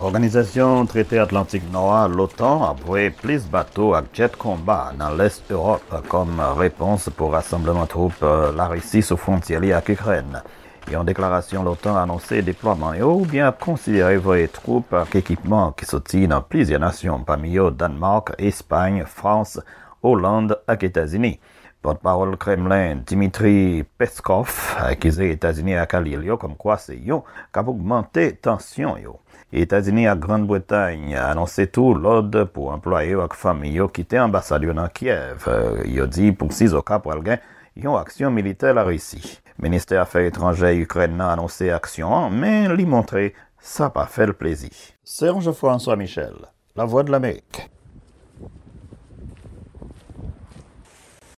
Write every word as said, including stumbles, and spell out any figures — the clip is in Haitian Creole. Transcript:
Òganizasyon Trete Atlantik Nò a, l'OTAN, ap voye plis bato ak djèt konba nan lès Ewòp kòm repons pou rasanbleman twoup Larisi sou fwontyè li ak Ikrèn. Yon deklarasyon l'OTAN anonse deplwaman yo oubyen ap konsidere voye twoup ak ekipman ki soti nan plizyè nasyon, pami yo Dannmark, Espay, Frans, Oland ak Etazini. Pòtpawòl Kremlen, Dmitry Peskov, akize Etazini ak alye l yo kòmkwa se yo k ap ogmante tansyon yo. Etazini ak Grann Bretay anonse tou lòd pou anplwaye yo ak fanmi yo kite anbasad yo nan Kyèv. Yo di pou sizoka pral gen yon aksyon militè Larisi. Ministè Afè Etranjè Ikrèn nan anonse aksyon an, men li montre sa pa fè l plezi. Serge François Michel, Lavwadlamerik.